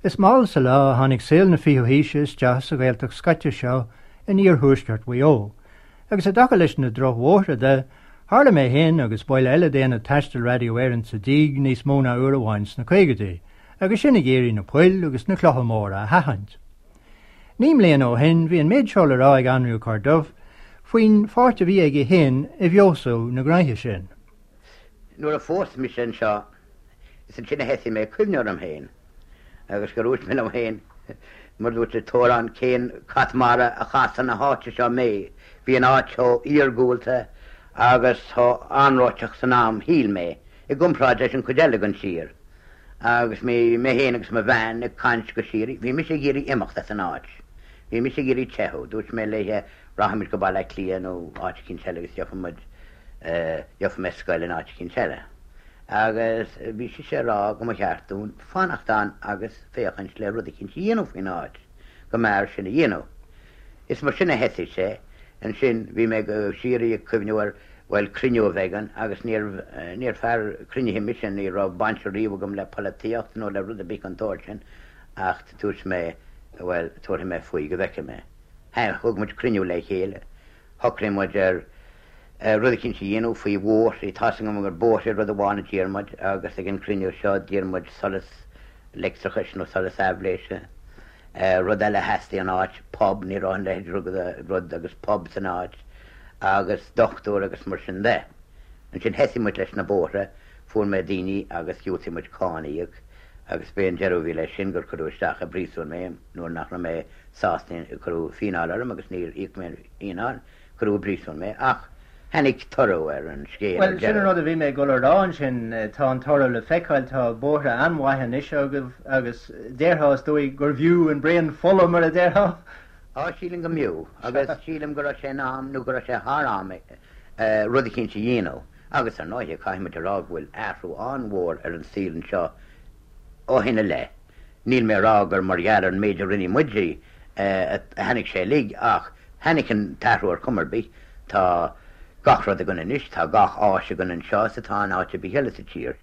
Is mall sa lá a tháinig saol na fichiú haoise isteach sa Ghaeltacht scoite seo in iarthuaisceart Mhaigh Eo, agus i dtaca leis na drochbhóithre de, tharla mé féin agus baill eile d'Aonad Taistil Radio Éireann sa díg níos mó ná uair amháin sna caogaidí, agus sinn ag iarraidh na poill agus na clocha móra a sheachaint. Naoi mbliana ó shin bhí an méid seo le rá ag Anraí Ó Corrduibh faoin pháirt a bhí aige féin i bhfeabhsú na gnoithe sin. Nuair a phós mise anseo, is ansin a thosaigh mé ag cuimhneamh orm féin agus gur dhúirt mé liom féin, mar dúirt an t-amhrán, cén cat mara a chas chun na háite seo mé? Bhí an áit chomh iargúlta agus chomh anróiteach san am, shíl mé, i gcomparáid leis an chuid eile den tír. Agus bhí mé féin agus mo bhean ag caint go síoraí. Bhí mise ag iarraidh imeacht as an áit. Bhí mise ag iarraidh teitheadh. Dúirt mé léithe, rachaimid go Baile Átha Cliath nó áit eicínt eile agus gheobhaidh muid, gheobhaidh mé scoil in áit eicínt eile. Agus bhí sise ag rá go mba cheart dúinn fanacht ann agus féachaint le rud eicínt a dhéanamh faoin áit, go mb'fhearr sin a dhéanamh. Is mar sin a thosaigh sé. Ansin bhí mé go síoraí ag cuimhneamh ar, bhuel, cruinniú a bheidh ann agus níorbh, níor fear cruinnithe mise, ní raibh baint riamh agam le polaitíocht nó le rud ar bith den tsórt sin ach dúirt mé, bhuel, tabharfaidh mé faoi go bhfeicfidh mé. Thug muid cruinniú le chéile, shocraigh muid ar rud eicínt a dhéanamh faoi bhóithre, tá's agam gur bóithre rud amháin a d'iarr muid agus ag an gcruinniú seo d'iarr muid solas leictreachais nó solas aibhléise. Rud eile a theastaigh ón áit, pub, ní raibh a leithéid rud agus pub san áit, agus dochtúir agus mar sin de. Ansin thosaigh muid leis na bóithre, fuair mé daoine agus dhiúltaigh muid cáin a íoc agus b'é an deireadh a bhí leis sin gur cuireadh isteach i bpríosún mé nuair nach raibh mé sásta, cuireadh fíneáil orm agus níor íoc mé an fhíneáil. Cuireadh i bpríosún mé, ach tháinig toradh ar an scéal ar Bhuel, sin an deireadh. rud a bhí mé ag dul a rá ansin, tá an toradh le feiceáil, tá bóithre an-mhaith anois agaibh agus déarfá, is dóigh, gurbh fhiú an braon fola, mar a déarfá. Á, sílim go mb'fhiú, agus sílim go raibh sé in am, nó go raibh sé thar am rud eicínt a dhéanamh. Agus ar ndóighe, caithfidh muid a rá go bhfuil athrú an-mhór ar an saol anseo ó shin i leith. Níl mé a rá gur mar gheall ar an méid a rinne muid a tháinig sé uilig ach tháinig an t-athrú ar chuma ar bith. Tá gach rud againn anois, tá gach áis againn anseo is atá in áit ar bith eile sa tír.